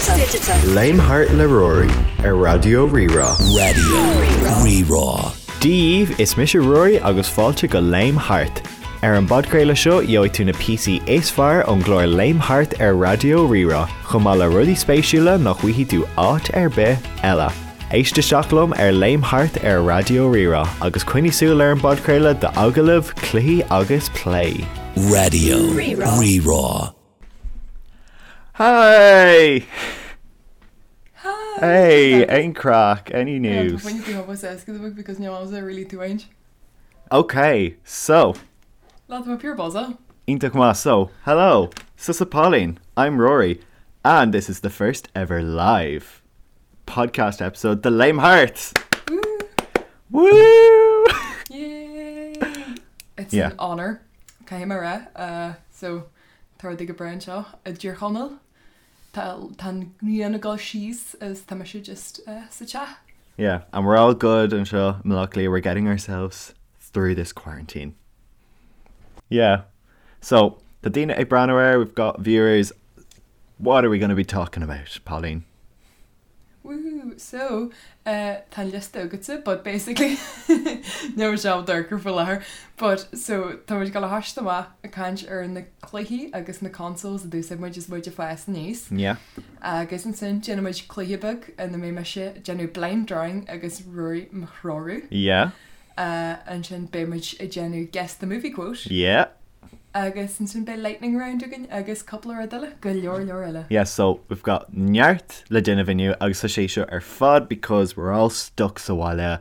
Léim Thart le Ruairí ar Raidió Rí-Rá. Raidió Rí-Rá. Dia dhaoibh, is mise Ruairí agus fáilte go Léim Thart. Ar an bpodchraoladh seo gheobhaidh tú na píosaí is fearr ón gclár Léim Thart ar Raidió Rí-Rá, chomh maith le rudaí spéisiúla nach bhfaighidh tú áit ar bith eile. Éist isteach liom ar Léim Thart ar Raidió Rí-Rá agus coinnigh súil ar an bpodchraoladh d'agallaimh, cluichí agus plé. Raidió Rí-Rá. Hi! Hi! Hey, aon craic, any news? because really too ain't. Okay, so. Lá tá pure buzz. Iontach maith, so, hello, Tusa Pauline, I'm Rory, and this is the first ever live podcast episode, The Léim Thart! Woo! Woo! Yay! It's Yeah. an honour. Caithfidh mé rá. Uh, so, tá rudaí go breá anseo i dTír Chonaill. Tá tá an ghrian ag dul síos is tá mise just uh, sa teach. Yeah, and we're all good anseo i mBaile Átha Cliath, we're getting ourselves through this quarantine. Yeah. So, tá daoine ag breathnú air, we've got viewers. What are we going to be talking about, Pauline? Woohoo! So, uh, tá an liosta agatsa, but basically níl sé dorcha faoi láthair. But, so, tá muid ag dul a thoiseacht amach ag caint ar na cluichí agus na consoles a d'úsáid muid is muid ag fás aníos. Yeah. Agus ansin déanfaidh muid cluiche beag ina mbeidh mise ag déanamh blind drawing agus Ruairí mo threorú. Yeah. Uh, ansin beidh muid ag déanamh guess the movie quote. Yeah. Agus ansin beidh lightning round againn agus cúpla rud eile, go leor leor eile. Yeah, so we've got neart le déanamh inniu agus tá sé seo ar fad because we're all stuck sa bhaile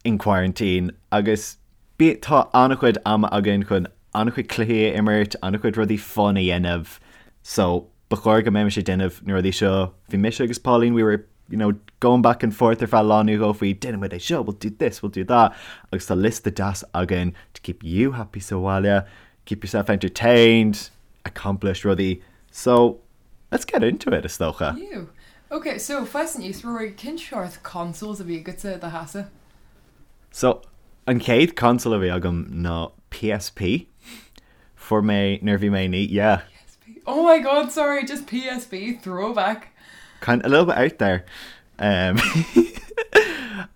in quarantine agus bí tá an-chuid ama againn chun an-chuid cluichí a imirt, an-chuid rudaí fun a dhéanamh. So ba chóir go mbeimis ag déanamh na rudaí seo. Bhí mise agus Pauline, we were you know, going back and forth ar feadh lá nó dhó faoi déanfaidh muid é seo, we'll do this, we'll do that agus tá liosta deas againn to keep you happy sa bhaile, keep yourself entertained, accomplish rudaí. So, let's get into it, is dócha. Ew. Ok, so fás aníos, Rory, cén seort consoles a bhí agatsa i do theachsa? So, an chéad console a bhí agam ná PSP. Fuair mé nuair a bhí mé naoi, yeah. PSP. Oh my god, sorry, just PSP, throwback. Kind a little bit out there. Um,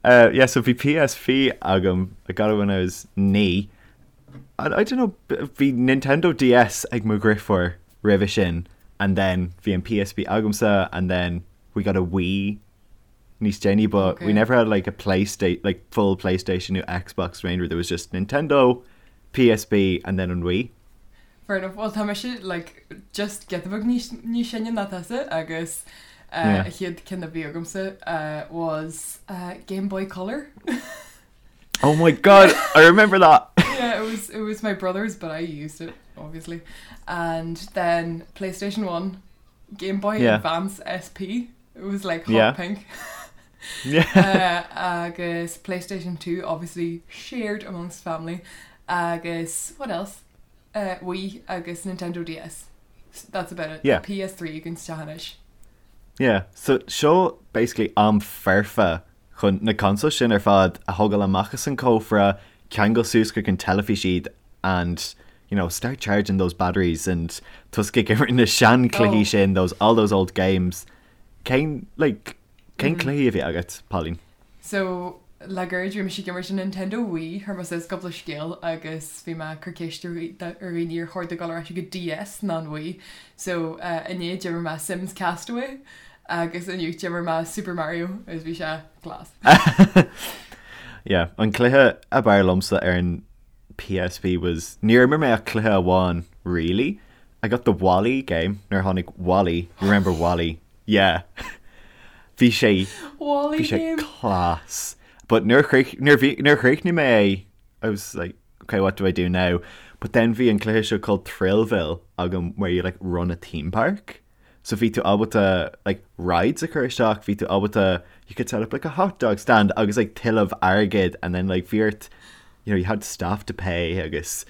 uh, yeah, so bhí PSP agam, I got it when I was naoi. I, I don't know, bhí Nintendo DS ag mo dheirfiúr roimhe sin, and then bhí an PSP agamsa, and then we got a Wii níos déanaí, but we Okay. never had like a PlayStation, like full PlayStation nó Xbox range, there was just Nintendo, PSP and then an Wii. Fair enough. Well, tá mise like just giota beag níos níos sine ná tusa agus uh, Yeah. an chéad ceann a bhí agamsa uh, was uh, Game Boy Color. Oh my god, I remember that! yeah, it was it was my brother's, but I used it obviously. And then PlayStation 1, Game Boy Yeah. Advance SP. It was like hot Yeah. pink. Yeah. uh, agus PlayStation 2 obviously shared amongst family. Agus what else? Uh, Wii agus Nintendo DS. That's about it. Yeah. PS3 you can anois. Yeah, so seo basically am foirfe chun na consoles sin ar fad a thógáil amach as an cófra, ceangal suas chuig an teilifís iad and you know, start charging those batteries and tosú ag imirt na seanchluichí Oh. sin, those, all those old games. Cén, like, cén cluichí a bhí agat, Pauline? So le gairid bhí mise ag imirt an Nintendo Wii chuir mé suas cúpla scéal agus bhí mé ag cur ceist ar dhaoine ar chóir dul ar ais go DS ná an Wii. So uh, inné d'imir mé Sims Castaway agus inniu d'imir mé Super Mario agus bhí sé class. Yeah, an cluiche ab fhearr liomsa ar an PSP was níor imir mé ach cluiche amháin really. I got the WALL-E game nuair a tháinig WALL-E, you remember WALL-E? Yeah. Bhí sé WALL-E bhí sé game. class. But nuair a chríoch- nuair a bhí- nuair a chríochnaigh mé é, I was like, okay, what do I do now? But then bhí an cluiche seo called Thrillville agam where you like run a theme park. So bhí tú ábalta like rides a chur isteach, bhí tú ábalta you could set up like a hot dog stand agus like tuilleamh airgid and then like bhí ort you know, you had staff to pay agus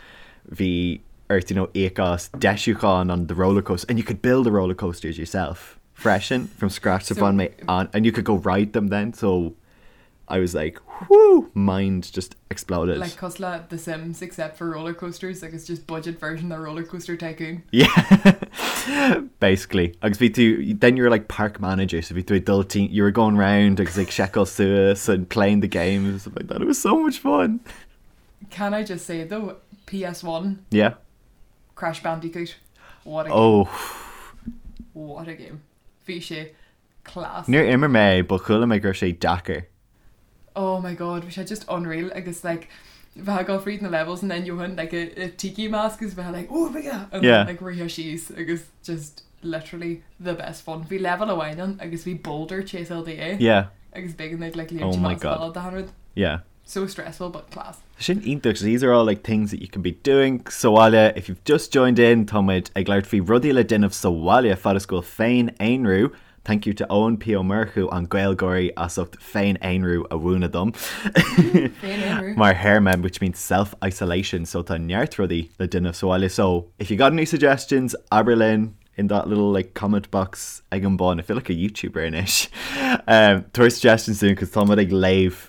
bhí ort you know, íoc as deisiúchán on the roller coaster and you could build the roller coasters yourself freisin from scratch so So- bhain mé an and you could go ride them then so I was like whoo mind just exploded. Like cosúil le The Sims except for roller coasters, like it's just budget version of Roller Coaster Tycoon. Yeah. Basically. Agus bhí tú, then you were like park manager, so bhí tú ag dul tí, you were going round agus ag seiceáil suas and playing the games and stuff like that. It was so much fun. Can I just say though, PS1, Yeah. Crash Bandicoot, what a game. Oh. What a game. Bhí sé class. Níor imir mé, but chuala mé go raibh sé deacair. Oh my god, bhí sé just unreal agus like bheith ag dul fríd na levels and then gheofainn like a, a tiki mask agus bheith like oh my god and Yeah. then like rith síos agus just literally the best fun. Bhí level amháin ann agus bhí boulder chaseáil duit Yeah. agus b'éigean duit like Oh léimt my amach God. as balla rud. Yeah. So stressful but class. Sin iontach, so these are all like things that you can be doing sa bhaile. If you've just joined in, tá muid ag labhairt faoi rudaí le déanamh sa bhaile fad is go bhfuil féin-aonrú. Thank you to Eoin P Ó Murchú an GaelGáirí as ucht féin-aonrú a mhúineadh dom. Féin-aonrú. Mar théarma, which means self-isolation, so tá neart rudaí le déanamh sa bhaile. So if you got any suggestions, abair linn in that little like comment box ag an bun. I feel like a YouTuber anois. Um, tabhair suggestions dúinn, cos tá muid ag léamh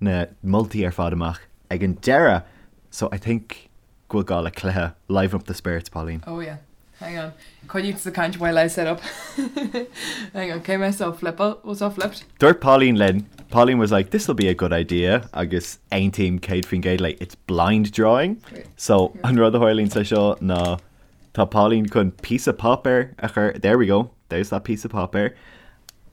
na moltaí ar fad amach ag an deireadh. So I think go bhfuil gá le cluiche liven up the spirits, Pauline. Oh yeah. Hang on. Coinnigh sa caint while I set up. Hang on. Cé mé so flip was all flipped. Dúirt Pauline linn, Pauline was like, this'll be a good idea agus aontaím 100% léi, it's blind drawing. Wait. So an rud a tharlaíonn sa seo ná tá Pauline chun píosa páipéir a chur, there we go, there's that piece of páipéir,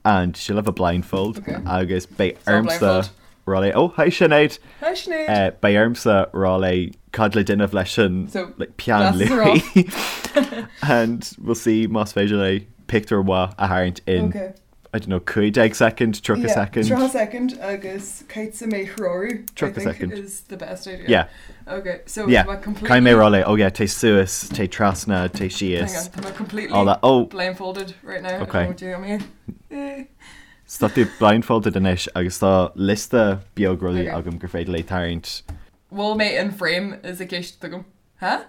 and she'll have a blindfold Okay. agus beidh all ormsa blindfold. rá léi, oh hi Sinéad! Hi Sinéad! Beidh ormsa rá léi cad le déanamh leis an So, like, peann glasses are luaidhe and we'll see más féidir léi pictiúr mhaith a tharraingt in Okay. I don't know, 15 second, 30 Yeah, second. 30 second agus caithfidh mé threorú. I 30 think second. is the best idea. Yeah. Okay, so Yeah. tá mé completely Caithfidh mé rá léi, oh yeah, téigh suas, téigh trasna, téigh Hang síos. on, tá mé completely All that. Oh. blindfolded right now. Okay. I don't know what you mean. So tá tú blindfolded anois agus tá liosta beag rudaí Okay. agam gur féidir léi tarraingt. Bhfuil mé in frame is an cheist agam. Huh?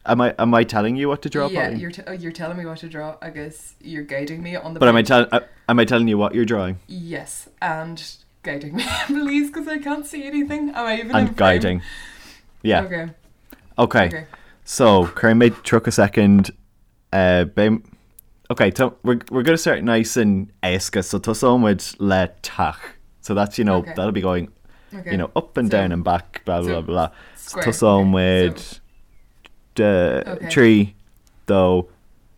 Am I am I telling you what to draw, Yeah, Pauline? you're, t- oh, you're telling me what to draw agus you're guiding me on the But am I page. telling am I telling you what you're drawing? Yes, and guiding me, please, because I can't see anything. Am I even in And frame? guiding. Yeah. Okay. Okay. Okay. So, cuirfidh mé 30 second uh, Okay, so we're, we're going to start nice and éasca, so tosóidh muid le teach. So that's, you know, Okay. that'll be going, Okay. you know, up and So- down and back, blah, blah, so blah. So square. tosóidh Okay, muid so- uh, Okay. trí, dó,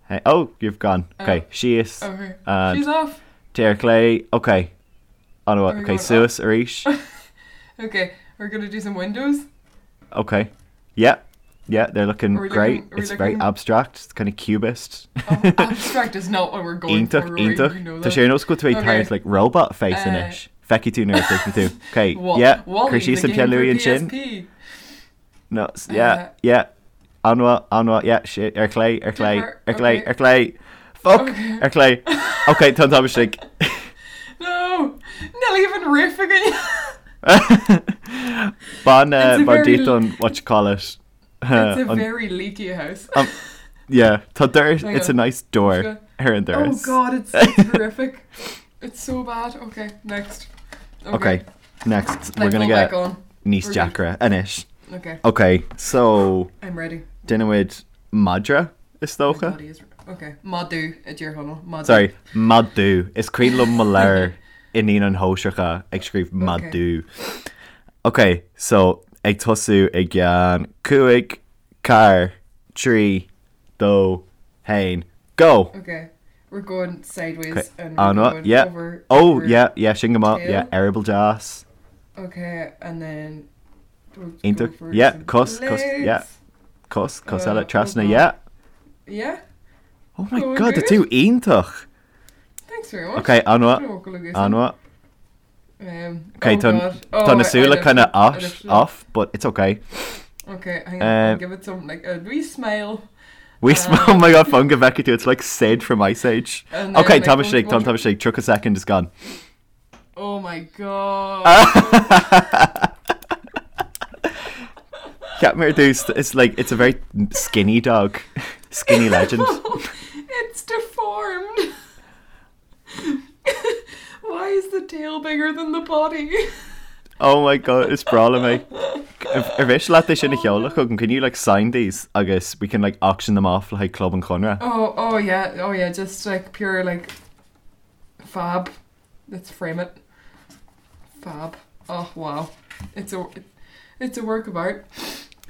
hey, oh, you've gone. Okay, Oh. síos. Okay. And She's off. téigh ar chlé. Okay. An Are we okay, going suas arís. Okay, we're gonna do some windows. Okay. Yeah. Yeah, they're looking Are we great. looking- are we it's very looking- abstract. It's kind of cubist. Oh, abstract is not what we're going Iontach, for. Rory, iontach. You know Tá that. sé ar nós go bhfuil tú ag Okay. tarraingt like robot face Uh, anois. Feicfidh tú nuair a chríochnóidh tú. Okay, Wa- yeah. Wall-E, Cuir síos the an game peann for luaidhe ansin. PSP. No, yeah, Uh, yeah. An-mhaith, an-mhaith, yeah, shit, ar chlé, ar chlé, Differ, ar chlé, okay. ar chlé. Fuck, Okay. ar chlé. Okay, tá an t-am istigh. No, níl even roof againn. Bain It's a bain very díot an what you call it. It's a An- very leaky house. yeah, tá doras, Hang it's a on. nice door Just ar an Oh doras. god, it's, it's horrific. It's so bad. Okay, next. Okay, next we're Blindfold gonna back get on. níos We're good. deacra anois. Okay, Okay, so I'm ready. déanfaimid madra is My dócha. body is okay. Madadh a deir Conall. Madadh. Sorry, madadh. Is cuimhin liom mo leabhar i naíonáin shóisearacha ag scríobh madadh. Okay, so ag tosú i gceann cúig, ceathair, trí, dó, haon, go! Okay, we're going sideways Okay, and we're an-mhaith, going yeah. over. Oh, over- yeah, yeah, sin go maith, tail. yeah, eireaball deas. Okay, and then. We'll go Iontach, for yeah, some cos, cos, yeah. legs. Cos, cos Uh, eile, trasna, oh God. yeah. Yeah, Oh my Going god, tá good. tú iontach! thanks very much. Okay, an-mhaith, Don't walk like an-mhaith. Um, Okay, oh tá God. Oh, tá na I- I súile lifted- kind of I off, lifted it. off, but it's okay. Okay, hang on. I'll Um, give it some like a wee smile. We sm- oh my god, fan go bhfeicfidh tú, it's like Sid from Ice Age. And then, Okay, like, tá we'll- istigh, we'll tá istigh, 30 second is gone. Oh my god. Cheap mé ar dtús, it's like, it's a very skinny dog. Skinny legend. it's deformed. Why is the tail bigger than the body? Oh my god, is breá liom é. Ar mhiste leat é sin a sheoladh chugam? Can you like sign these agus we can like auction them off le haghaidh Club an Chonradh? Oh, oh yeah, oh yeah, just like pure like fab. Let's frame it. Fab. Oh wow. It's a it's a work of art.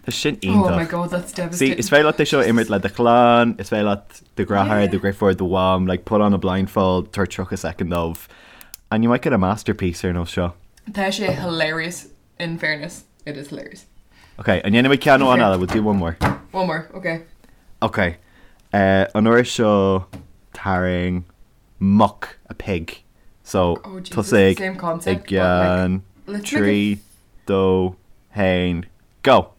Tá sin iontach. Oh my god, that's devastating. See, is féidir leat é seo a imirt le do chlann, is féidir leat do dheartháir, do dheirfiúr, do mham, like put on a blindfold, tabhair 30 soicind dóibh and you might get a masterpiece ar nós seo. Tá sé hilarious in fairness. It is hilarious. Ok, an ndéanfaidh muid ceann amháin eile, we'll do one more. One more, ok. Ok, uh, an uair seo tarraing muc, a pig. So, Oh Jesus, tosaigh same i concept, but like, gceann let's make it 3, 2, 1, go!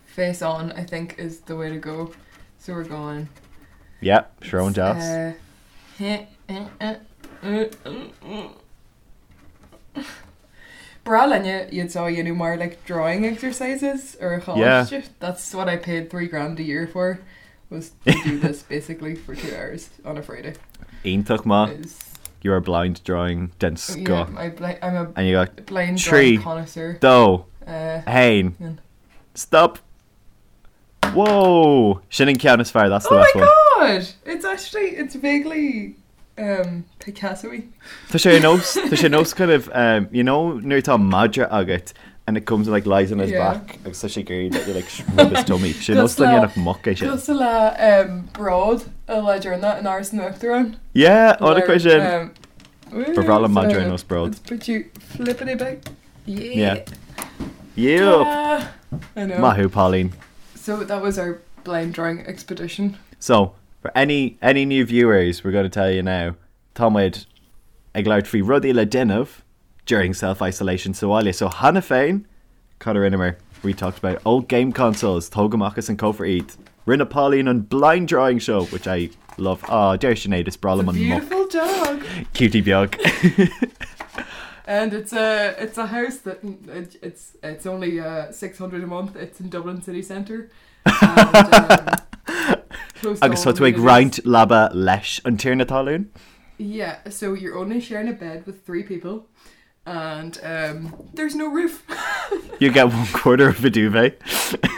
Face on, I think, is the way to go. So we're going. Yeah, srón deas. B'bhreá linne iad seo a dhéanamh mar like drawing exercises ar an Yeah. choláiste. That's what I paid 3 grand a year for, was to do this basically for 2 hours on a Friday. Iontach maith. Is You are blind drawing den yeah, scoth. I bli- I'm a And you got blind 3, drawing connoisseur. 2, Uh, 1, yeah. stop! Whoa! Sin an ceann is fearr, that's the Oh best my one. god! It's actually, it's vaguely Picasso-y. Tá sé ar nós, tá sé ar nós kind of, you know nuair atá madra agat and it comes and like lies on his Yeah. back agus tá sé ag iarraidh that you like rub his tummy. Sé nós Cosúil le le- dhéanfadh muc é sin. Cosúil le Bród an lá deireanach in Áras an Uachtaráin. Yeah, ó Where, chuir sin. woo, Ba bhreá liom madra ar so nós Bród. Let's put you flippity back. Yeah. Yeah. Yep. Ah, I know. Maith thú, Pauline. So that was our blind drawing expedition. So, for any any new viewers, we're going to tell you now, tá muid ag labhairt faoi rudaí le déanamh during self-isolation sa bhaile. So cheana féin, cad a rinneamar? We talked about old game consoles, tóg amach as an cófra iad. Rinne Pauline an blind drawing show, which I love. Aw, deir Sinéad, is breá liom an muc. Beautiful dog. Cutie beag. And it's a it's a house that it, it's it's only 600 a month. It's in Dublin city centre. And, close to Agus all tá tú ag amenities. roinnt leaba leis an tiarna talún? Yeah, so you're only sharing a bed with 3 people, and there's no roof. You get one quarter of a duvet.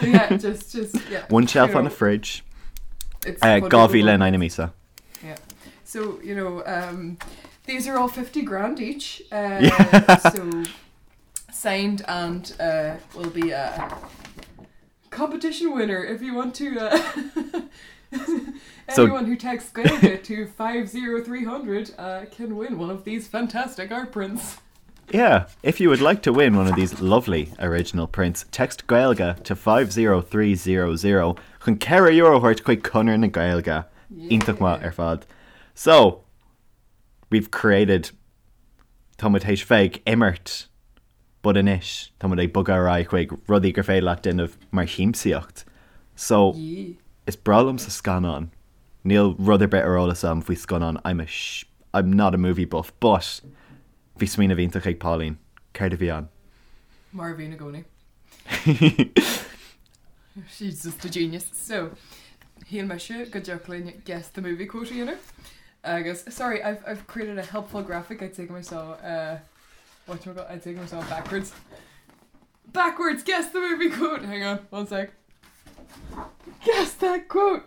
Yeah, just just yeah. One shelf you on a know, fridge. It's 2000 in aghaidh na míosa. Yeah. So, you know, these are all 50 grand each. Yeah. So signed and will be a competition winner if you want to. So- Anyone who texts Gaeilge to 50300 can win one of these fantastic art prints. Yeah, if you would like to win one of these lovely original prints, text Gaeilge to 50300 chun €4 a thabhairt chuig Conradh na Gaeilge. Iontach maith ar fad. So, we've created tá muid théis bheith ag imirt, but anois tá muid ag bogadh ar aghaidh chuig rudaí gur féidir leat déanamh mar shiamsaíocht. So, Yeah. is breá liomsa scannáin. Níl rud ar bith ar eolas agam faoi scannáin. I'm a I'm not a movie buff, but bhí smaoineamh iontach ag Pauline. Céard a bhí ann? Mar a bhíonn i gcónaí. She's just a genius. So, shíl mise go dtiocfadh linn guess the movie quote a dhéanamh. Agus, sorry, I've, I've created a helpful graphic. I'd take myself, whatchamacallit, I'd take myself backwards. Backwards, guess the movie quote! Hang on, one sec. Guess that quote!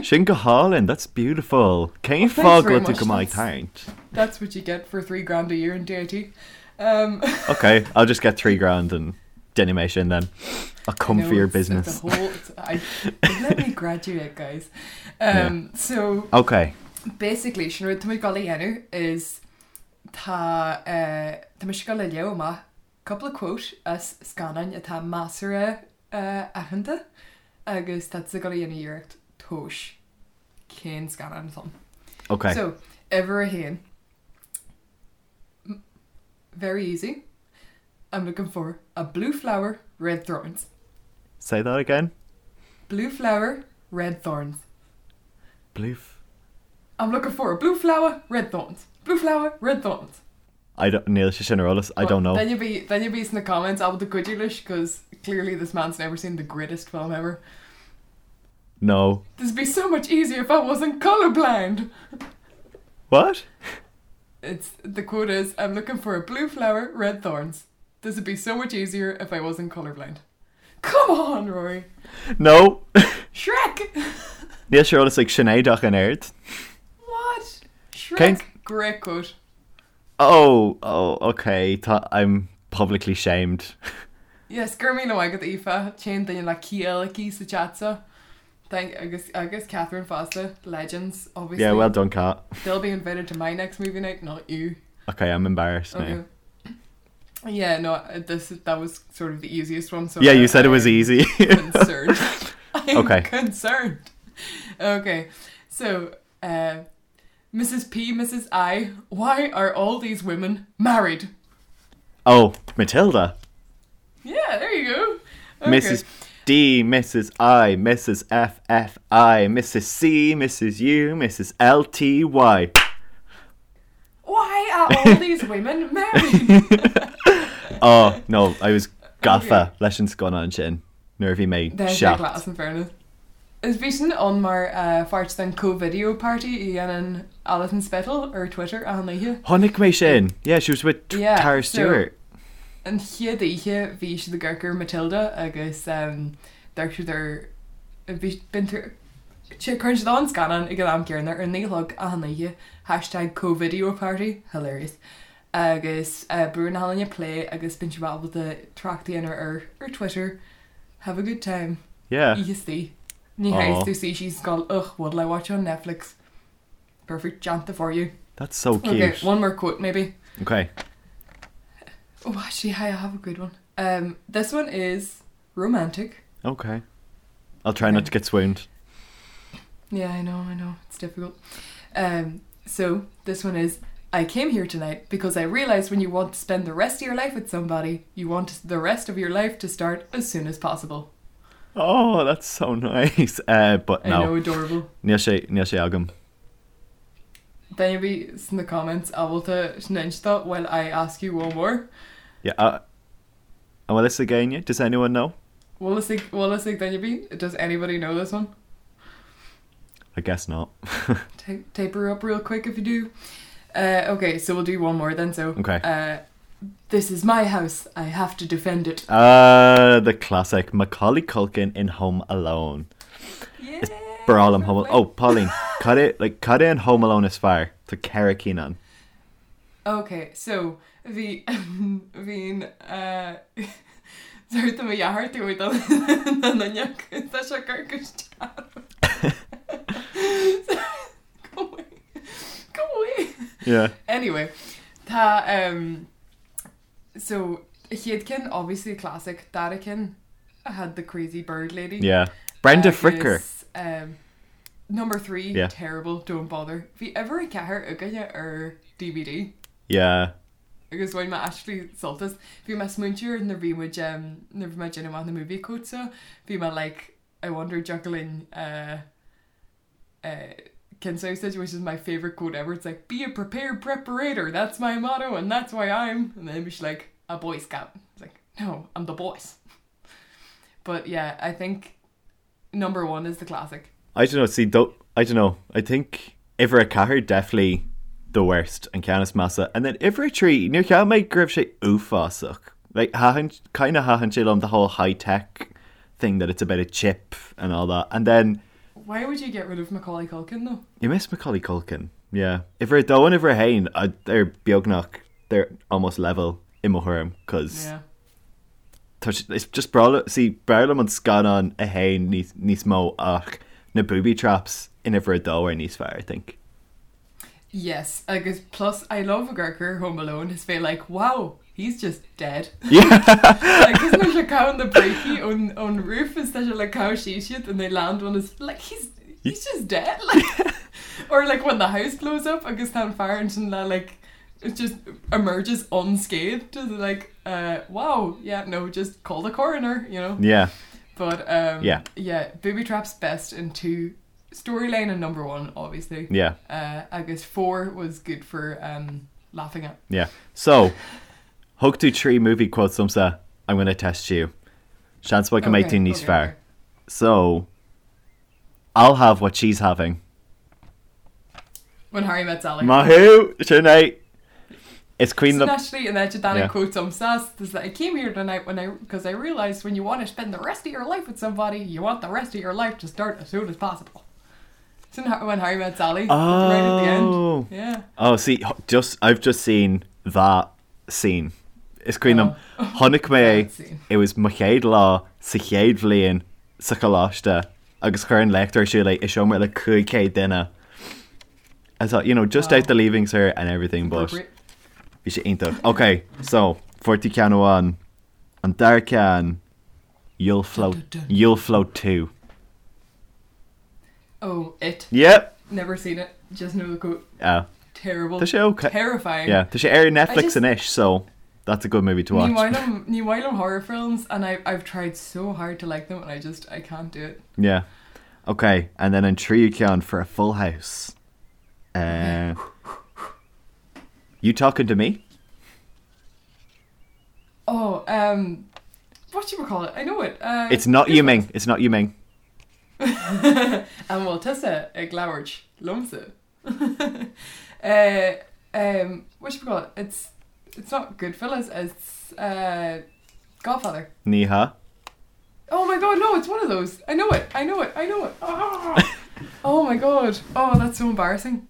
Sin go hálainn, that's beautiful. Cén Oh, thanks fáth very go bhfuil tú much. go maith That's- tarraingt? That's what you get for 3 grand a year in DIT. Okay, I'll just get 3 grand and déanfaidh mé sin then. I'll come No, for your it's, business. It's a whole, it's, I, let me graduate, guys. So Okay. basically, sin rud tá muid ag dul a dhéanamh is tá tá mise ag dul a léamh amach cúpla quote as scannáin atá measartha aitheanta agus tá tú ag dul a dhéanamh iarracht tomhas cén scannán atá ann. Okay. So, uimhir a haon. Very easy. I'm looking for a blue flower, red thorns. Say that again. Blue flower, red thorns. Blue. I'm looking for a blue flower, red thorns. Blue flower, red thorns. I don't, níl sé sin ar eolas. I don't know. Then you'll be then you'll be in the comments ábalta cuidiú leis because clearly this man's never seen the greatest film ever. No. This'd be so much easier if I wasn't colorblind. What? It's the quote is I'm looking for a blue flower, red thorns. This would be so much easier if I wasn't colourblind. Come on, Rory! No! Shrek! Níl sé ar eolas ag Sinéad ach an oiread. What? Shrek! Great quote. Oh, oh, ok, tá, I'm publicly shamed. Yes, go raibh míle maith agat Aoife, an t-aon duine le ciall aici sa chat seo. Thank, agus, agus Catherine fosta, legends, obviously. Yeah, well done, Cat. They'll be invited to my next movie night, not you. Ok, I'm embarrassed now. Okay. Yeah, no, this, that was sort of the easiest one, so Yeah, you said it was easy. concerned. I'm Okay. concerned. Okay, so, uh, Mrs. P, Mrs. I, why are all these women married? Oh, Matilda. Yeah, there you go. Okay. Mrs. D, Mrs. I, Mrs. F F I, Mrs. C, Mrs. U, Mrs. L T Y. Why are all these women married? Oh, no, I was gafa leis an scannán sin nuair a bhí mé There's 7. class in fairness. Is bhí sin ann mar pháirt den co-video party a dhéanann Alison Spittle ar Twitter achan oíche. Chonaic mé sin! Yeah, she was with Yeah, Tara so Stewart. an chéad oíche bhí siad ag amharc ar Matilda agus d'amharc siad ar bhí bíonn tú cuireann siad an scannán ag an am céanna ar a naoi a chlog achan oíche hashtag co-video party hilarious agus buaileann achan duine plé agus bíonn siad ábalta trácht a dhéanamh ar ar Twitter Have a good time. Yeah. Oíche istigh. Ní théis tú suí síos ag gabháil ugh, what'll I watch on Netflix? Perfect déanta for you. That's so cute. Okay, one more quote maybe. Okay. Oh, actually, I have a good one. Um, this one is romantic. Okay. I'll try not to get swooned. Yeah, I know, I know. It's difficult. Um, so this one is I came here tonight because I realized when you want to spend the rest of your life with somebody, you want the rest of your life to start as soon as possible. Oh, that's so nice. Uh, but I know, no. adorable. Níl sé, níl sé agam. Duine ar bith sna comments ábalta sin a inse while I ask you one more. Yeah, uh, an bhfuil fhios ag éinne? Does anyone know? Bhfuil fhios ag, bhfuil fhios ag duine ar bith? Does anybody know this one? I guess not. Tape her up real quick if you do. Uh, okay, so we'll do one more then. So, Okay. uh, this is my house. I have to defend it. Uh, the classic Macaulay Culkin in Home Alone. Yeah. Breá liom Home Alone. Oh, Pauline, cad é, like, cad é an Home Alone is fearr? Tá ceithre cinn ann. Okay, so bhí bhí'n uh, Sorry tá mo dheartháir tú ag dul na n-oineach tá sé cur go Go away. Go away. Yeah. Anyway, tá um, so chéad ceann obviously classic dara ceann had the crazy bird lady. Yeah. Brenda Fricker. Agus, um, number 3 Yeah. terrible don't bother. Bhí uimhir a ceathair againne ar DVD. Yeah. Agus bhain mé actually sult as. Bhí mé ag smaointiú ar nuair bhí muid um, nuair bhí mé ag déanamh amach na movie quotes seo, bhí mé like I wonder dtiocfadh linn uh, uh, ceann seo which is my favourite quote ever. It's like be a prepared preparator, that's my motto and that's why I'm and then she's like a boy scout. It's like no, I'm the boss. But yeah, I think number one is the classic. I don't know, see, don't, I don't know. I think uimhir a ceathair definitely the worst an ceann is measa and then uimhir a trí níor cheap mé go raibh sé uafásach. Like thaitin kind of thaitin sé liom the whole high tech thing that it's about a chip and all that and then Why would you get rid of Macaulay Culkin though? You miss Macaulay Culkin, yeah. Uimhir a dó and uimhir a haon, they're beagnach, they're almost level i mo thuairim cos Yeah. tá sé, it's just breá liom, see, b'fhearr liom an scannán a haon níos, níos mó ach na booby traps in uimhir a dó are níos fearr, I think. Yes, agus plus I love ag amharc ar Home Alone is bheith like wow, he's just dead. Yeah. Like is sé ag caitheamh na brící ón ón roof is tá sé like caitheamh síos iad and they land on his like he's he's just dead like or like when the house blows up agus tá an fear ansin le like it just emerges unscathed is like uh wow yeah no just call the coroner you know Yeah. but um Yeah. yeah booby traps best in two storyline and number one obviously Yeah. uh, agus four was good for um laughing at Yeah. So thug tú trí movie quotes domsa, I'm gonna test you. Seans maith go mbeidh Okay, tú níos okay, fearr. okay. So I'll have what she's having. When Harry Met Sally. Maith thú, sin é. Is cuimhin liom. Actually, an áit a dtáinig quote domsa is that I came here tonight when I because I realised when you want to spend the rest of your life with somebody, you want the rest of your life to start as soon as possible. Sin when Harry Met Sally. Oh. Right at the end. Yeah. Oh, see, just I've just seen that scene. Is cuimhin liom oh. chonaic mé it was mo chéad lá sa chéad bhliain sa choláiste agus chuir an léachtóir ar siúl é i seomra le 500 duine. I thought, you know, just out the leaving cert and everything, but bhí sé iontach. Ok, so, fuair tú ceann amháin, an dara ceann, you'll float, you'll float too. Oh, it. Yep. Never seen it, just know the quote. Yeah. Terrible. Tá sé ok. Terrifying. Yeah, tá sé ar Netflix anois, so that's a good movie to watch. Ní maith liom, ní maith liom horror films and I, I've tried so hard to like them and I just, I can't do it. Yeah. Ok, and then an tríú ceann for a full house. Uh, you talking to me? Oh, um, what you call it? I know it. Uh, it's not Yu Ming. It's not Yu Ming. An bhfuil tusa ag labhairt liomsa? uh, um, what you call it? It's it's not Goodfellas. It's uh, Godfather. Ní hea. Oh my god, no, it's one of those. I know it, I know it, I know it. Oh, oh my god. Oh, that's so embarrassing.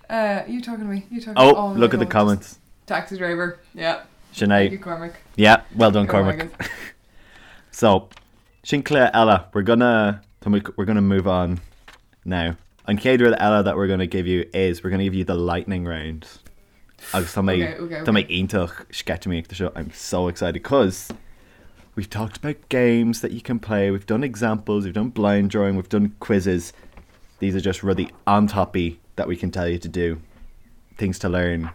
Uh, you talking to me? You talking oh, oh look at the comments. Taxi driver. Yeah. Sinead. you, Cormac. Yeah, well done, Cormac. so, sin cluiche eile, we're gonna we're gonna move on now. An chéad rud eile that we're gonna give you is we're gonna give you the lightning round. Agus tá mé tá mé iontach sceitimíneach do seo. I'm so excited cause we've talked about games that you can play, we've done examples, we've done blind drawing, we've done quizzes. These are just rudaí an-tapaidh that we can tell you to do, things to learn,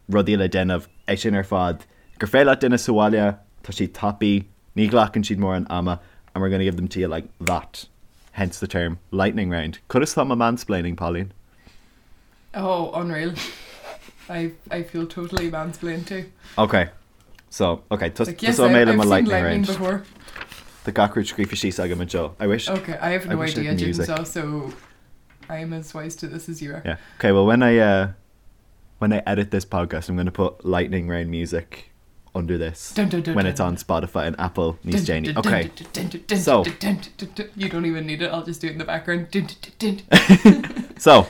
rudaí le déanamh, é sin ar fad. Gur féidir leat déanamh sa bhaile, tá siad tapaidh, ní ghlacann siad mórán ama and we're gonna give them to you like that. Hence the term lightning round. Conas tá mo mansplaining, Pauline? Oh, unreal. I, I feel totally mansplained to. Ok. So, ok, tos, Like, yes, tosóidh mé I, le I've mo seen lightning lightning round. before. Tá gach rud scríofa síos agam anseo. I wish Okay, I have I no wish I idea, had music. Jigsaw, so I am as wise to this as you are. Yeah. Okay, well when I uh when I edit this podcast, I'm going to put lightning round music under this Dun, dun, dun, when dun. it's on Spotify and Apple Dun, níos déanaí. dun, Okay. dun, dun, dun, dun, So. dun, dun, dun, dun. You don't even need it, I'll just do it in the background. Dun, dun, dun, dun. So,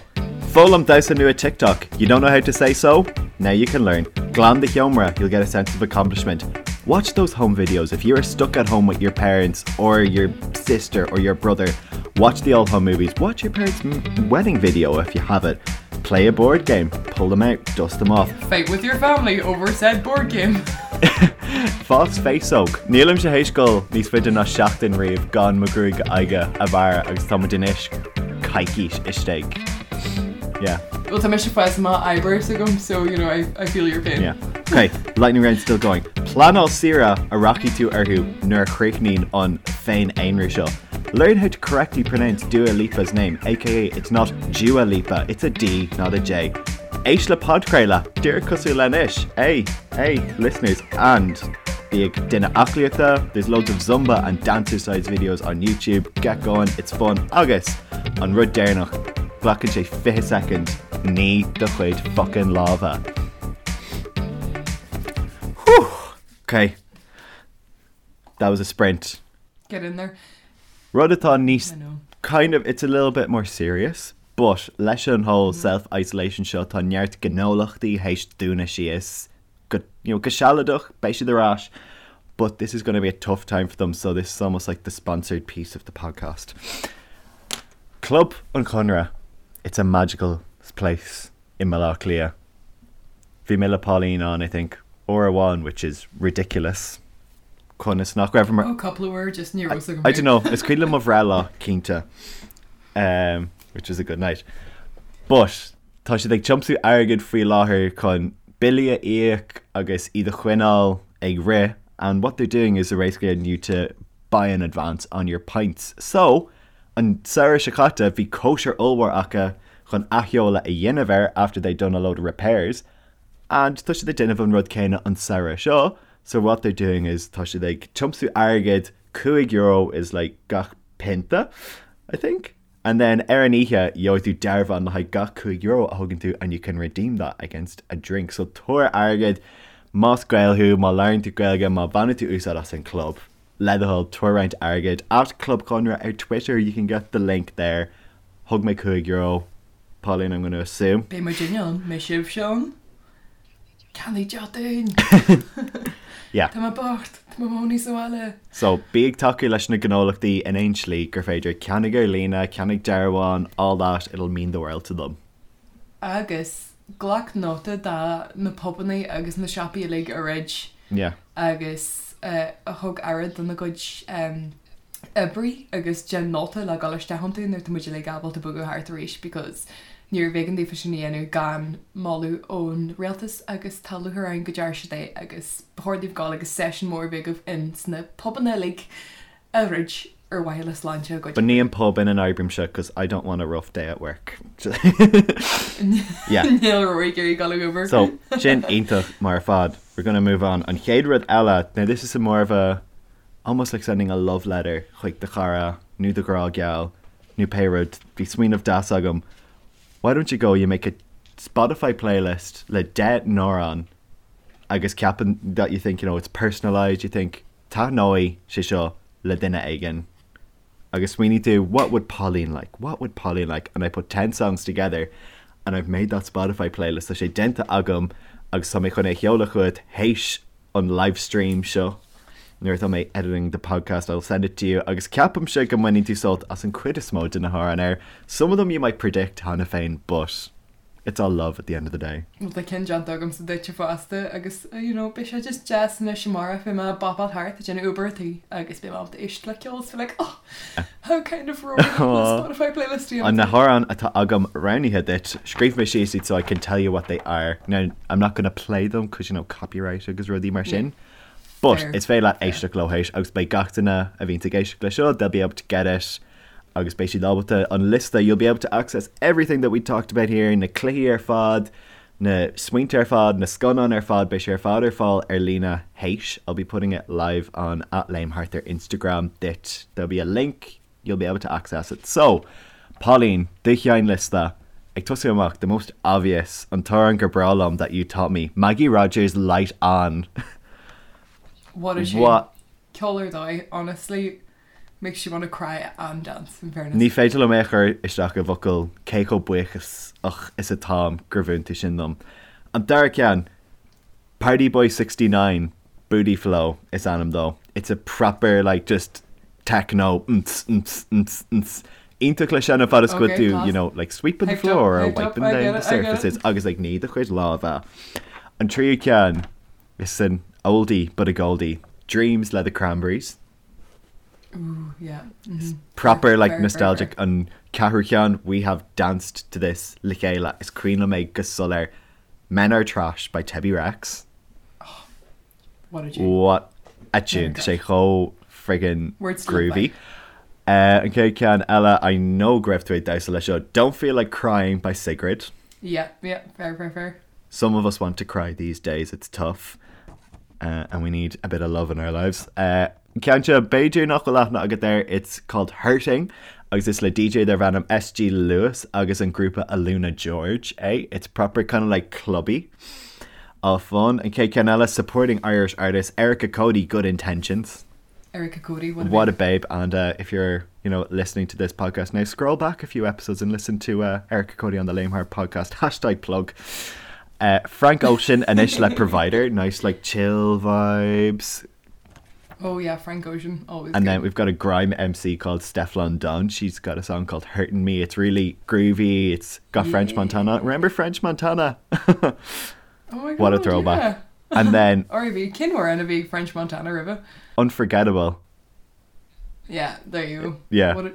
Foghlaim damhsa nua TikTok. You don't know how to say so? Now you can learn. Glan do sheomra, you'll get a sense of accomplishment. Watch those home videos. If you are stuck at home with your parents or your sister or your brother, watch the old home movies. Watch your parents' wedding video if you have it. Play a board game. Pull them out. Dust them off. Fight with your family over said board game. Fás féasóg. Nílimse théis dul níos faide ná seachtain riamh gan mo ghruaig aghaidhe a bhearradh agus tá muid anois coicís istigh. Yeah. Well tá mise ag fás amach eyebrows agam so you know I, I feel your pain. Yeah. Ok, lightning round still going. Pleanáil saoire a rachaidh tú orthu nuair a chríochnaíonn an féin-aonrú seo. Learn how to correctly pronounce Dua Lipa's name, aka it's not Dua Lipa, it's a D, not a J. Éist le podchraoladh, díreach cosúil le anois, hey, hey, listeners, and bí ag déanamh aclaíochta, there's loads of Zumba and dancercise videos on YouTube, get going, it's fun, agus an rud deireanach, glacann sé 20 soicind, nigh do chuid fucking lámha. Whew! Okay. That was a sprint. Get in there. Rud atá níos kind of it's a little bit more serious, but leis an whole mm. self-isolation seo tá neart gnólachtaí théis dúnadh síos go you know, go sealadach beidh siad ar ais, but this is going to be a tough time for them, so this is almost like the sponsored piece of the podcast. Club an Chonradh, it's a magical place in Baile Átha Cliath. Bhí mé le Pauline ann, I think, uair amháin, which is ridiculous. Conas nach raibh Oh, cúpla uair just ní raibh I don't know, is cuimhin liom mo bhreithlá, cinnte, um, which was a good night. But tá siad ag tiomsú airgid faoi láthair chun billí a íoc agus iad a choinneáil ag rith and what they're doing is they're basically getting you to buy in advance on your pints. So, an samhradh seo caite bhí cóisir ollmhór acu chun athsheoladh a dhéanamh air after they'd done a load of repairs and tá siad ag déanamh an rud céanna an samhradh seo so what they're doing is tá siad ag tiomsú airgid, €5 is like gach pionta, I think. And then ar an oíche, gheobhaidh tú dearbhán le haghaidh gach €5 a thugann tú and you can redeem that against a drink. So tabhair airgead, más Gael thú, má labhraíonn tú Gaeilge, má bhaineann tú úsáid as an club, le do thoil, tabhair roinnt airgid. At Club Chonradh ar Twitter, you can get the link there. Thug mé €5, Pauline, I'm going to assume. Beidh muidinne ann, mbeidh sibhse ann? Ceannaigh deoch dúinn! Yeah. Tá mé bocht, tá mé i mo chónaí sa bhaile. So, bí ag tacú leis na gnólachtaí in aon slí gur féidir, ceannaigh ar líne, ceannaigh dearbháin, all that, it'll mean the world to them. Agus glac nóta de na pubannaí agus na siopaí uilig a dhruid Yeah. agus a thug aire dona gcuid oibrí agus déan nóta le dul isteach iontu nuair atá muid uilig ábalta bogadh thart arís because níorbh éigean daofa sin a dhéanamh gan moladh ón rialtas agus tá lúcháir orainn go ndearna siad é agus ba chóir daoibh dul agus seisiún mór a bheith agaibh in sna pubanna uilig a dhruid ar mhaithe le sláinte a gcuid Ba ní oibrí. an pub ina n-oibrímse cos I don't want a rough day at work. Yeah. Níl Rory ag iarraidh dul ag obair. So, sin iontach mar fad. We're gonna move on. An chéad rud eile, now this is a more of a almost like sending a love letter chuig do chara nó do ghrá geal nó pé rud, bhí smaoineamh deas agam, why don't you go, you make a Spotify playlist le 10 n-amhrán agus ceapann that you think, you know, it's personalised, you think taitneoidh sé seo le duine éigin agus smaoinigh tú what would Pauline like, what would Pauline like and I put 10 songs together and I've made that Spotify playlist, tá sé déanta agam agus tá mé chun é a sheoladh chugat théis an live stream seo nuair atá mé editing the podcast I'll send it to you agus ceapaimse go mbainfidh tú sult as an cuid is mó de na hamhráin air. Some of them you might predict cheana féin but it's all love at the end of the day. Bhuel tá ceann déanta agamsa duitse fosta agus you know beidh sé just deas anois amárach beidh mé ag bopáil thart ag déanamh obair an tí agus beidh mé ábalta éisteacht le ceol is be like oh how kind of Rory le Spotify playlist a An dhéanamh na dom. hamhráin atá agam roghnaithe duit, scríobh mé síos iad so I can tell you what they are. Now, I'm not gonna play them cos you know copyright agus rudaí mar sin. But Fair. is féidir leat éisteacht leo théis agus beidh gach duine a bhíonns ag éisteacht le seo, they'll be able to get it agus beidh siad ábalta an liosta, you'll be able to access everything that we talked about here, na cluichí ar fad, na smaointe ar fad, na scannáin ar fad, beidh sé ar fad ar fáil ar líne théis, I'll be putting it live on at Léim Thart ar Instagram duit, there'll be a link, you'll be able to access it. So, Pauline, do sheinnliosta, ag tosú amach, the most obvious, an t-amhrán gur breá liom that you taught me, Maggie Rogers' Light On. What a tune. What? Ceol ar dóigh, honestly, makes you want to cry and dance, in fairness. Ní féidir liom é a chur isteach i bhfocail cé chomh buíochasach is atáim gur mhúin tú sin dom. An dara ceann, Party Boy 69, Booty Flow is ainm dó. It's a proper like just techno nts nts nts nts iontach le seinm fad is go Okay, tú class. you know like sweeping the Hyped up, floor or hyped up, wiping I down get the it, I get it. surfaces agus like ní do chuid lámha. An tríú ceann is an oldie but a goldie, Dreams le The Cranberries. Ooh, yeah. mhm. Proper Fair, like fair, fair, nostalgic fair. an ceathrú ceann we have danced to this le chéile is cuimhin liom é go soiléir Men Are Trash by Tebi Rex. What a tune. What a tune. Men Are Tá sé chomh friggin Words to live groovy. An chéad ceann eile I know go raibh tú ag damhsa leis seo Don't Feel Like Crying by Sigrid. Yeah, yeah, fair, fair, fair. Some of us want to cry these days, it's tough. And we need a bit of love in our lives. Ceann seo, b'fhéidir nach bhfuil aithne agat air, it's called Hurting agus is le DJ darb ainm SG Lewis agus an grúpa Aluna George é. It's proper kind of like clubby. All fun. An chéad ceann eile, supporting Irish artist Erica Cody, Good Intentions. Erica Cody, what a What a babe. babe. And if you're, you know, listening to this podcast now, scroll back a few episodes and listen to Erica Cody on the Lame Heart podcast. Hashtag plug. Frank Ocean, anois le Provider. Nice, like, chill vibes. Oh yeah, Frank Ocean, always And good. then we've got a grime MC called Stefflon Don. She's got a song called Hurting Me. It's really groovy. It's got French Yeah. Montana. Remember French Montana? Oh my What a God, throwback. yeah. And then R.I.P. Cén amhrán a bhí French Montana roimhe. Unforgettable. Yeah, there you go. Yeah. What a,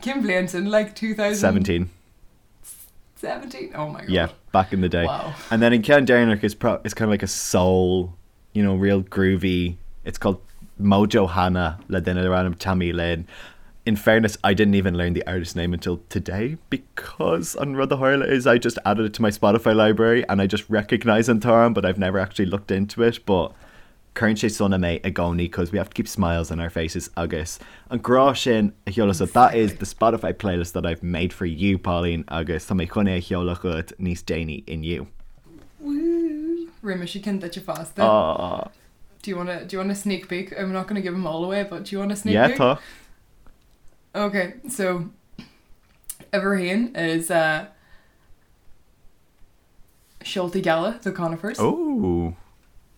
cén bhliain sin, like 17. 2017? Oh my God. Yeah, back in the day. Wow. And then in ceann deireanach is pro it's kind of like a soul, you know, real groovy. It's called Mojo Hannah le duine darb ainm Tammy Lynn. In fairness, I didn't even learn the artist name until today because an rud a tharla is I just added it to my Spotify library and I just recognize an t-amhrán, but I've never actually looked into it. But Cuireann sé sona mé i gcónaí cause we have to keep smiles on our faces agus an grá sin a sheoladh so that is the Spotify playlist that I've made for you Pauline agus tá mé chun é a sheoladh chugat níos déanaí inniu. Woo! Rinne mise ceann duitse fosta. Aww. Do you wanna, do you want a sneak peek? I'm not gonna give them all away, but do you want a sneak Yeah peek? tá. Okay, so uimhir a haon is uh, Seoltaí Geala, The Conifers. Oh!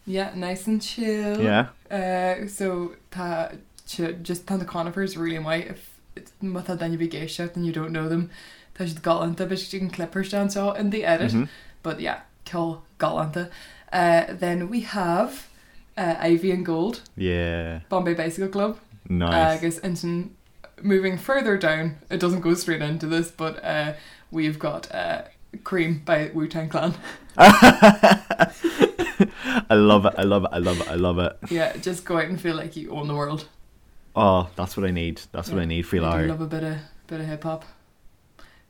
Yeah, nice and chill. Yeah. Uh, so tá just tá The Conifers really maith if má tá duine ar bith ag éisteacht and you don't know them tá siad galánta beidh siad an clip anseo in the edit mm -hmm. but yeah ceol galánta. Uh, then we have uh, Ivy and Gold. Yeah. Bombay Bicycle Club. Nice. Agus ansin moving further down, it doesn't go straight into this, but uh, we've got uh, Cream by Wu-Tang Clan. I love it, I love it, I love it, I love it. Yeah, just go out and feel like you own the world. Oh, that's what I need. That's what I need faoi I do láthair. love a bit of bit of hip hop.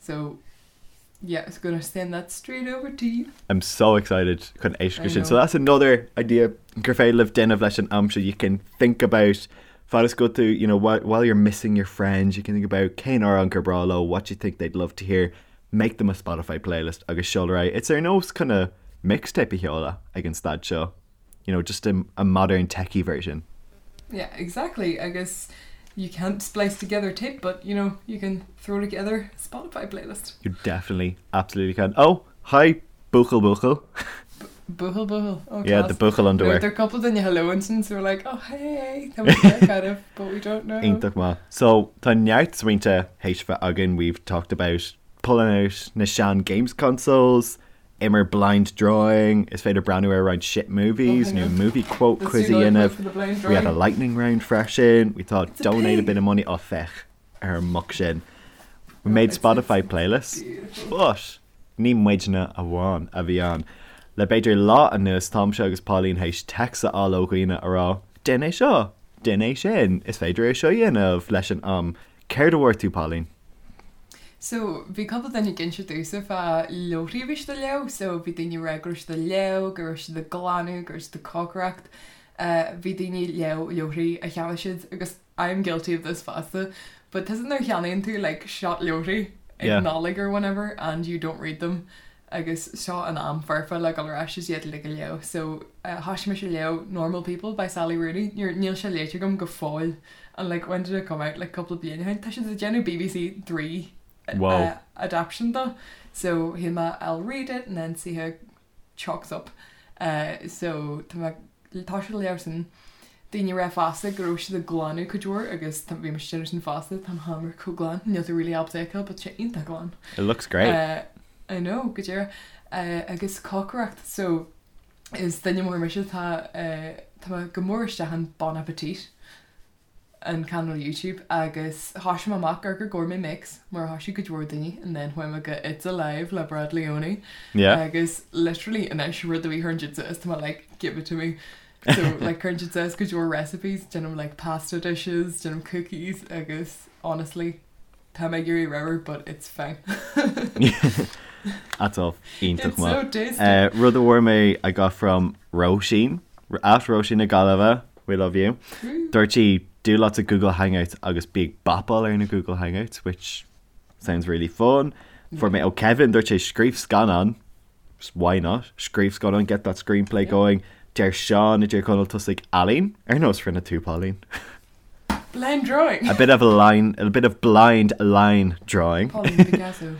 So yeah, it's gonna send that straight over to you. I'm so excited chun éisteacht I sin. So know. that's another idea gur féidir libh déanamh leis an am seo. You can think about fad is go to, you know, while, while you're missing your friends, you can think about cén amhrán gur breá leo, what you think they'd love to hear, make them a Spotify playlist agus seol ar aghaidh. It's ar nós kind of mixtape a sheoladh ag an staid seo. You know, just a, a modern techie version. Yeah, exactly. Agus you can't splice together tape, but you know, you can throw together a Spotify playlist. You definitely, absolutely can. Oh, hi, buachaill buachaill. Buachaill buachaill. Oh, Yeah, the class. buachaill underwear. There are a couple duine hello ansin, so we're like, oh hey, tá muid there kind of, but we don't know. Iontach maith. So, tá neart smaointe théis bheith againn, we've talked about pulling out na sean games consoles, imir blind drawing, is féidir breathnú ar roinnt shit movies Oh, hang nó on. movie quote Let's quiz do a another dhéanamh. clip for the blind We had a drawing. lightning round freisin, we thought It's a donate a pig. bit of money, oh féach ar an muc sin. We made it's- Spotify it's playlists, beautiful. but ní muidne amháin a bhí ann. Le b'fhéidir lá anuas táimse agus Pauline théis text a fháil ó dhaoine a rá, Déan é seo, déan é sin, is féidir é seo a dhéanamh leis an am. Céard a bhfuair tú, Pauline? So, bhí cúpla duine ag inse domhsa fá leabharthaí a bhí siad ag léamh, so bhí daoine ag rá go raibh siad ag léamh, go raibh siad ag glanadh, go raibh siad ag cócaireacht, bhí daoine ag léamh leabharthaí a cheannaigh siad agus I'm guilty of this fosta, but tusa nuair a cheannaíonn tú like seacht leabharthaí ag Yeah. Nollaig or whenever and you don't read them agus seo an am foirfe le dul ar ais is iad uilig a léamh. So, thosaigh mise ag léamh Normal People by Sally Rooney, níl sé léite agam go fóill And like when did it come out? Like cúpla bliain ó shin. Tá siad ag déanamh BBC 3 Wow. adaptation dó. So shíl mé I'll read it and then see how it chalks up. Uh, so tá mé ag toiseacht ag léamh sin. Daoine ag rá fosta go raibh siad ag glanadh cuid mhór agus tá bhí mise ag déanamh sin fosta, tá mo sheomra chomh glan, níl tú really ábalta é a fheiceáil but tá sé iontach glan. It looks great. Uh, I know, go díreach. Uh, agus cócaireacht, so is duine mór mise tá uh, tá mé go mór isteach in Bon Appetit. an cainéal YouTube agus thoisigh mé amach ar Gourmet Makes mar a thoisigh cuid mhór daoine and then chuaigh mé go It's Alive le Brad Leone Yeah. agus literally anois rud a bhí chuireann siad suas tá mé like give it to me so like cuireann siad suas cuid mhór recipes déanaim like pasta dishes déanaim cookies agus honestly tá mé ag éirí ramhar but it's fine. That's all iontach It's so maith. tasty. Uh, rud a bhfuair mé I got from Róisín, at Róisín na Gaillimhe, we love you. Dúirt sí do lots of Google Hangouts agus bí ag bapáil ar na Google Hangouts, which sounds really fun. Fuair mé ó Kevin, dúirt sé scríobh scannán, why not? Scríobh scannán, get that screenplay going. Deir Seán i dTír Chonaill tosaigh ealaín, ar nós rinne tú Pauline. Blind drawing. A bit of a line, a bit of blind line drawing. Pauline Picasso.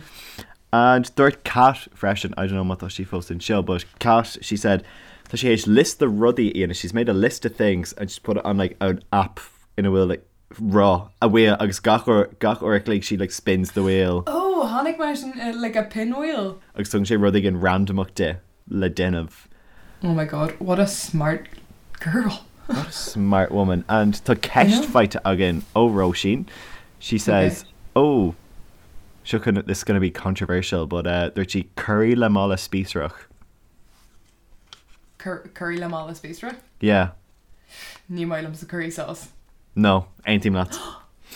And dúirt Kat freisin, I don't know má tá sí fós anseo, but Kat, she said, tá sí théis liosta rudaí a dhéanamh, she's made a list of things and she's put it on like an app ina bhfuil like roth a wheel agus gach uair gach uair a chloig she like spins the wheel. Oh, chonaic mé sin uh, like a pinwheel. Agus tugann sé rud éigin randamach di le déanamh. Oh my god, what a smart girl. What a smart woman. And tá ceist faighte againn ó Róisín. She says, oh, seo chun, this is gonna be controversial, but uh, dúirt sí curry le mála spíosrach. Cur, curry le mála spíosra? Yeah. Ní maith liomsa curry sauce. No, aontaím leat.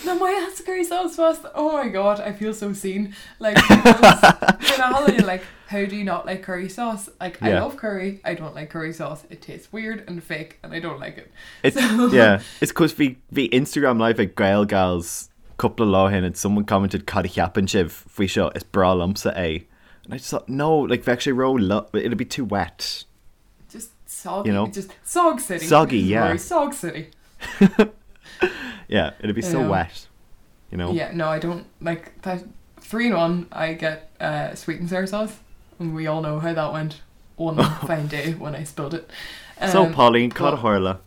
Nach maith leatsa curry sauce fosta? Oh my god, I feel so seen. Like, because you know how you're like, how do you not like curry sauce? Like, I Yeah. love curry, I don't like curry sauce. It tastes weird and fake and I don't like it. It's, So- yeah, it's cos bhí bhí Instagram live ag Gaelgals cúpla lá ó shin and someone commented cad a cheapann sibh faoi seo is breá liomsa é. And I just thought no, like bheadh sé ró it'd be too wet. Just soggy, You know? just sog city. Soggy, yeah. Rory, sog city. Yeah, it'd be so Yeah. wet. You know? Yeah, no, I don't like that. 3 in 1, I get uh, sweet and sour sauce, and we all know how that went one fine day when I spilled it. So Pauline, but- cad a tharla.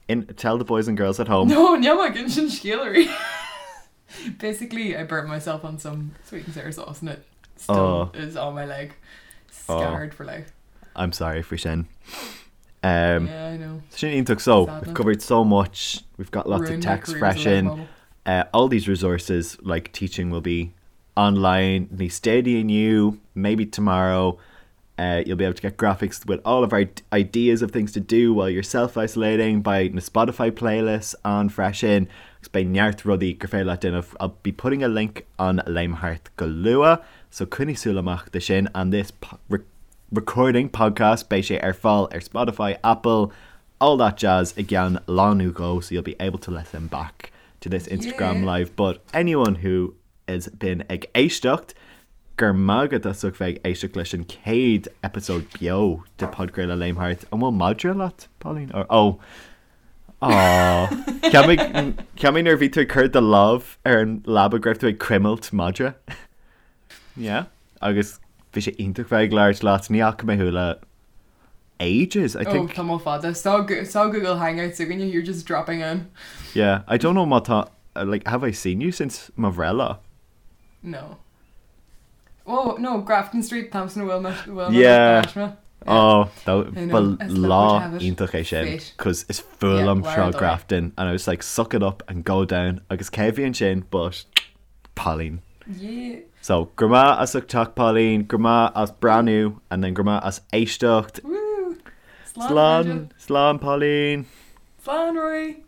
In tell the boys and girls at home. No, níl mé ag insint scéal oraibh. Basically, I burnt myself on some sweet and sour sauce, and it still Oh. is on my leg, scarred for life. I'm sorry faoi sin. Um, yeah, I know. Sin iontach so Sadness. we've covered so much. We've got lots Ruined of my text career as a fresh life in. model. All these resources like teaching will be online níos déanaí inniu, maybe tomorrow. You'll be able to get graphics with all of our ideas of things to do while you're self-isolating by na Spotify playlists on freisin. Agus beidh neart rudaí gur féidir leat déanamh. I'll be putting a link on Léim Thart go luath, so coinnigh súil amach do sin and this po re recording podcast beidh sé ar fáil ar Spotify, Apple, all that jazz i gceann lá nó dhó so you'll be able to listen back to this Instagram Yeah. live. But anyone who has been ag éisteacht, go raibh maith agat as ucht bheith ag éisteacht leis an chéad episode beo de podchraoladh Léim Thart. An bhfuil madra leat, Pauline? Or, oh. Aw. Cheap mé cheap mé nuair a bhí tú ag cur do lámh ar an leaba go raibh tú ag cuimilt madra. Yeah. Agus bhí sé iontach bheith ag labhairt leat, ní fhaca mé thú le ages, I Oh, think. tamall fada. Saw, saw Google Hangouts againn, you're just dropping in. Yeah, I don't know má tá like have I seen you since mo bhreithlá? No. Oh, no, Grafton Street, Thompson Wilmot, Wilmot, Yeah. Nashma. Oh, I know, ba as luck would lá have it. iontach é sin, Fate. cos is fuath Yeah, liom lá Sráid ar dóigh. Grafton and I was like suck it up and go down agus cé bhí ansin but Pauline. Yeah. So grma as ucht teacht Pauline, grma as breathnú and then grma as éisteacht. Woo. Slán, Slán, slán Pauline. Slán, Rory.